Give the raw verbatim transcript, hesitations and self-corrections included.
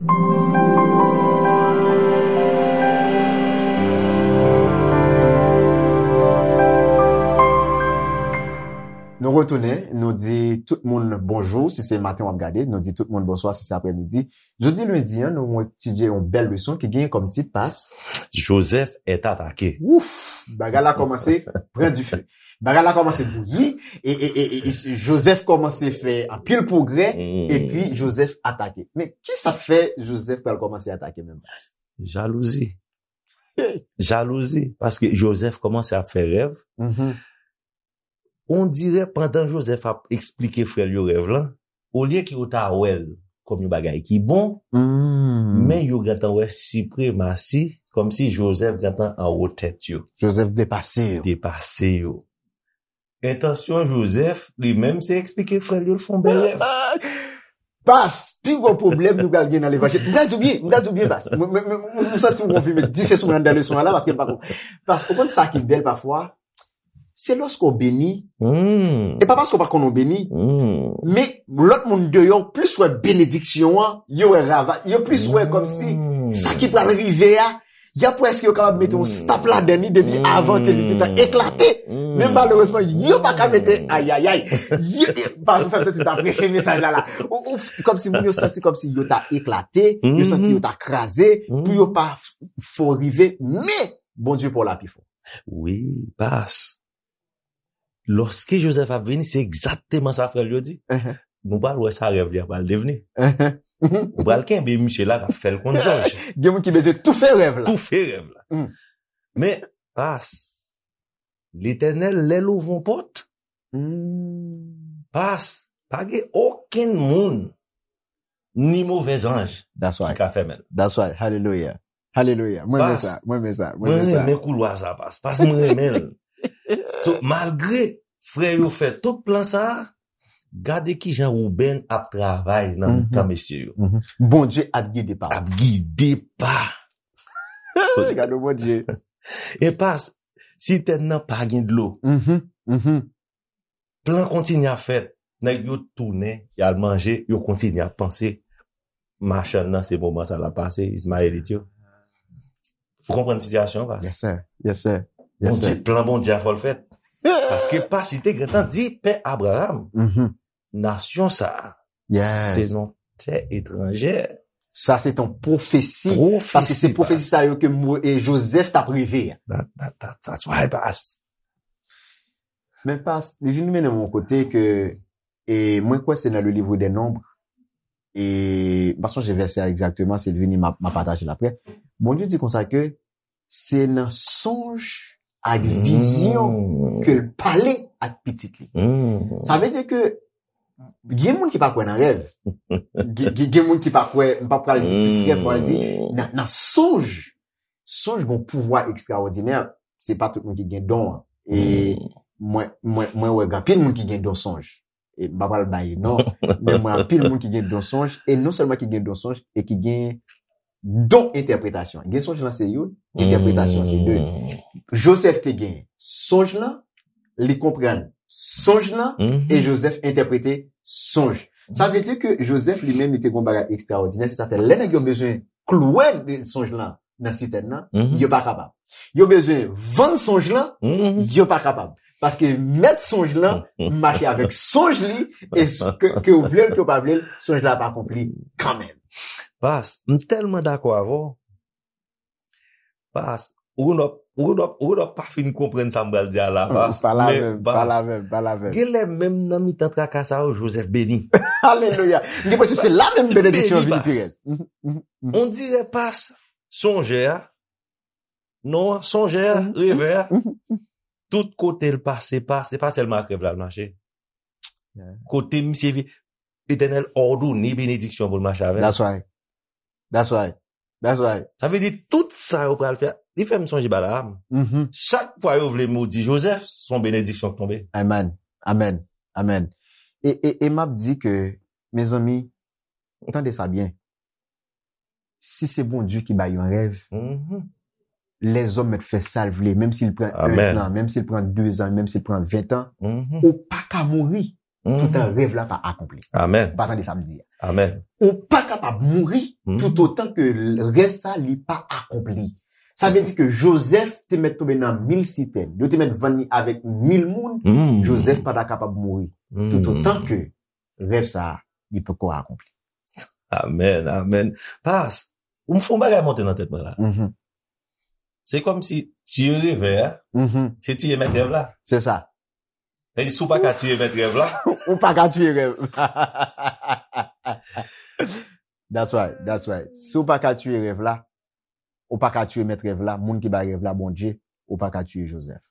Nou retounen, nou di tout moun bonjou si se maten w ap gade, nou di tout moun bonswa si se aprèmidi. Jodi lendi an, nou etidye yon bèl leson ki genyen kòm tit, Pas. Joseph est attaqué. Wouf, bagay la kòmanse pran dife. Bagay la kòmanse bouyi, e, e, e, e, e Joseph kòmanse fè anpil pwogrè, epi Joseph atake. Men kisa k fè Joseph pral kòmanse atake menm, Pas? Jalouzi. Jalouzi, paske Joseph kòmanse ap fè rèv. On dirè pandan Joseph ap eksplike frè l yo rèv lan, olye ke yo ta wè l kòm yon bagay ki bon, men yo gentan wè sipremasi, kòmsi Joseph gentan anwo tèt yo. Joseph depase yo. Depase yo. Entansyon Joseph, li menm, se eksplike frè l yo l fè yon bèl rèv. Pas, pi gwo pwoblèm nou pral gen nan levanjil. M pral di w byen, m pral di w byen, Pas. Mwen, mwen, mwen, mwen santi w konfime dife sou mwen anndan leson an la, paske m pa konn. Pas, ou konn sa ki bèl pafwa? Se lòske w beni, e pa paske w pa konn w beni, men lòt moun deyò plis wè benediksyon an, yo wè rava, yo plis wè kòmsi sa ki pral rive a, y ap wè èske yo kapab mete yon stop ladan li depi avan ke li gentan eklate. Men malerezman, yo pa ka mete ayayay. Yo, yo, pa fè m santi m ta preche mesaj la la. Ou, ou, kòmsi moun yo santi kòmsi yo ta eklate, yo santi yo ta kraze, pou yo pa f-, fè w rive, men Bondye pa w la pi fò. Wi, Pas. Lòske Joseph ap vini, se egzakteman sa frè l yo di. Nou pral wè sa rèv li a pral devni. Nou pral kenbe misye la, n ap fè l konn jòj. Gen moun ki bezwen toufe rèv la. Toufe rèv la. Men, Pas, Letènèl, lè l ouvri yon pòt, Pas, pa gen okenn moun, ni move zanj ki ka fèmen l. That's right. Hallelujah. Hallelujah. Mwen renmen sa. Mwen renmen sa. Mwen renmen koulwa sa, Pas. Pas, mwen renmen l. So, malgre frè yo fè tout plan sa a, gade kijan Wouben ap travay nan mitan mesye yo. Bondye ap gide pa. Ap gide pa. Gade Bondye. E Pas, sitèn nan pa gen dlo. Plan kontinye ap fèt. Nèg yo tounen, y al manje, yo kontinye ap panse. Machann nan, se moman sa l ap pase, Izmayelit yo. Ou konprann sitiyasyon an, Pas? Yes, sir. Yes, sir. Yes, Bondye, sir. Plan Bondye a fò l fèt. Paske Pas, li te gentan di pè Abraham, nasyon sa a, se yon tè etranjè. Sa se yon pwofesi. Pwofesi, paske se pwofesi sa yo ke Mo-, e Joseph t ap reve a. That, that, that, that's why, Pas. Men Pas, li vin mennen m yon kote ke, e mwen kwè se nan le livre des Nombres, e m pa sonje vèsè a egzakteman, si l vini, m a, m a pataje l aprè. Bondye di konsa ke se nan sonj ak vizyon ke l pale ak pitit li. Sa vle di ke gen moun ki pa kwè nan rèv. Gen, gen, gen moun ki pa kwè, m pa pral di plis rèv, m pral di nan, nan sonj. Sonj gen yon pouvwa ekstraòdinè. Se pa tout moun ki gen don an. E mwen, mwen, mwen wè gen anpil moun ki gen don sonj. E m pa pral bay non, men mwen anpil moun ki gen don sonj, e non sèlman ki gen don sonj, e ki gen don entèpretasyon. Gen sonj lan se youn, entèpretasyon se de. Joseph te gen sonj lan, li konprann sonj lan, e Joseph entèprete sonj. Sa vle di ke Joseph li menm, li te gen yon bagay ekstraòdinè, se sa fè lè nèg yo bezwen klouwe sonj lan nan sitèn nan, yo pa kapab. Yo bezwen vann sonj lan, yo pa kapab. Paske mèt sonj lan mache avèk sonj li, e s-, ke, ke w vle l, ke w pa vle l, sonj la ap akonpli kanmenm. Pas, m tèlman dakò avè w. Pas, ou konn w ap, ou konn w ap, ou konn w ap pa fin konprann sa m pral di a la, Pas. Pa la menm, pa la menm, pa la menm. Gen lè menm nan mitan traka sa yo, Joseph beni. Alelouya. M gen enpresyon se la menm benediksyon an vini pi rèd. On dirè Pas, sonjè a, non, sonjè a, revè a, tout kote l pase, pa, se pa sèlman ak rèv la l mache. Kote misye vi-, Letènèl òdone benediksyon pou l mache avè l. That's right. That's right. That's right. Sa vle di tout sa yo pral fè, li fè m sonje Balaam. Chak fwa yo vle modi Joseph, se yon benediksyon k tonbe. Amen. Amen. Amen. E, e, e m ap di ke, mezanmi, tande sa byen. Si se Bondye ki bay yon rèv, lèzòm mèt fè sa l vle, menm si l pran entan, menm si l pran dezan, menm si l pran ventan, ou pa ka mouri. Toutan rèv la pa akonpli. Amen. Ou pa tande sa m di a. Amen. Ou pa kapab mouri toutotan ke rèv sa li pa akonpli. Sa vle di ke Jozèf te mèt tonbe nan mil sitèn. Yo te mèt vann li avèk mil moun. Jozèf pa ta kapab mouri toutotan ke rèv sa li poko akonpli. Amen, amen. Pas, ou m fè yon bagay monte nan tèt mwen la. Se kòm si tiye revè a, se tiye mèt rèv la. Se sa. Se si w pa ka tiye mèt rèv la. Ou pa ka tiye rèv. That's right, that's right. Si w pa ka tiye rèv la, ou pa ka tiye mèt rèv la, moun ki bay rèv la, Bondye, ou pa ka tiye Jozèf.